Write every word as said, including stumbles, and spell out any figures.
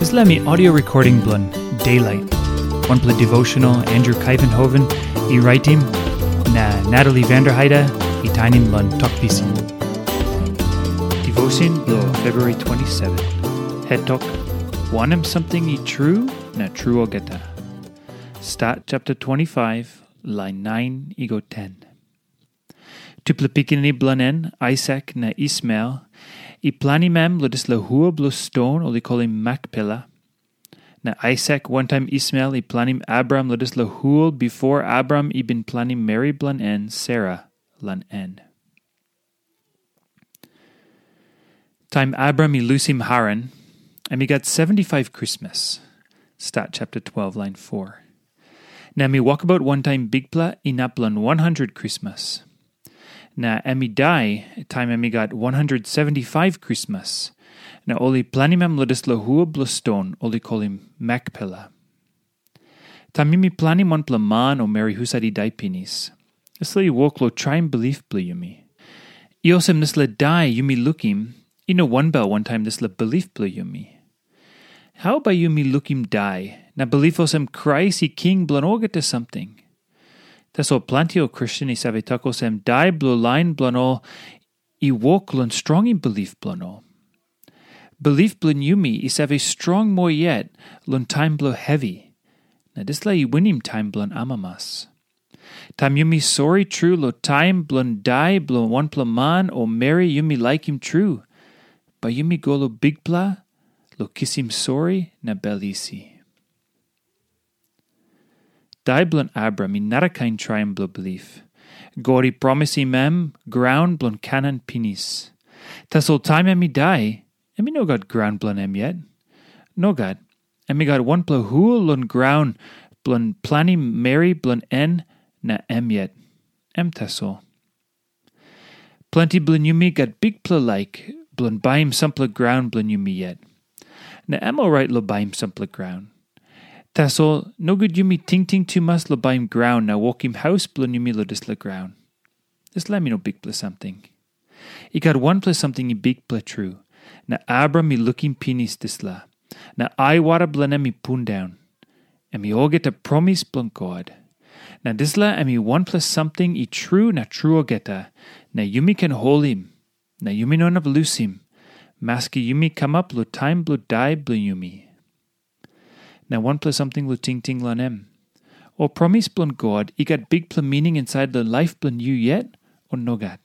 Dispela mi audio recording bilong Daylight, wanpela devotional Andrew Kaivenhoven i raitim, na Natalie Vanderheide i tainim long Tok Pisin. Devotion bilong February twenty-seven. Het tok, wanem samting i tru na tru olgeta. Stat chapter twenty-five, lain nine i go ten. Tupela pikinini bilong en, Aisak na Ismael, i planim em long dispela hua bilong ston ol i kolim Makpela. Na Aisak wantaim Ismael i planim Abraham long dispela hua bipo Abraham i bin planim meri bilong en Sera long en. Taim Abraham i lusim Haran, em i gat seventy-five krismas. Stat chapter twelve, lain four. Na em i wokabaut wantaim Bikpela inap long one hundred krismas. Na em i dai taim em i gat one hundred seventy-five krismas. Na ol i planim em long dispela hua bilong ston ol i kolim Makpela. Taim yumi planim wanpela man o meri husat i dai pinis, dispela i wok long traim bilip bilong yumi. I olsem dispela dai yumi lukim, i no wanbel wantaim dispela bilip bilong yumi. Hau bai yumi lukim dai na bilip olsem Krais i king bilong olgeta samting? Tasol planti ol Kristen i save tok olsem dai bilong lain bilong ol i wok long strongim bilip bilong ol. Bilip bilong yumi i save strong moa yet long taim bilong hevi, na dispela i winim taim bilong amamas. Taim yumi sori tru long taim bilong dai bilong wanpela man o meri yumi laikim tru, bai yumi go long Bikpela long kisim sori na bel isi. Dai bilong Abraham i narakain traim bilong bilip. God i promisim em graun bilong Kanan pinis. Tasol taim em i dai, em i no gat graun bilong em yet. Nogat, em i gat wanpela hua long graun bilong planim meri bilong en na em yet. Em tasol. Planti bilong yumi gat bikpela laik bilong baim sampela graun bilong yumi yet. Na em orait long baim sampela graun. Tasol nogut yumi tingting tumas long baim graun na wokim haus bilong yumi long dispela graun. Dispela em i no bikpela samting. I gat wanpela samting i bikpela tru, na Abraham i lukim pinis dispela, na aiwara bilong em i pundaun. Em i olgeta promis bilong God. Na dispela em i wanpela samting i tru na tru olgeta, na yumi ken holim, na yumi no inap lusim, maski yumi kamap long taim bilong dai bilong yumi. Na wanpela samting long tingting long em. Ol promis bilong God i gat bikpela mining insait long laip bilong yu yet, o nogat?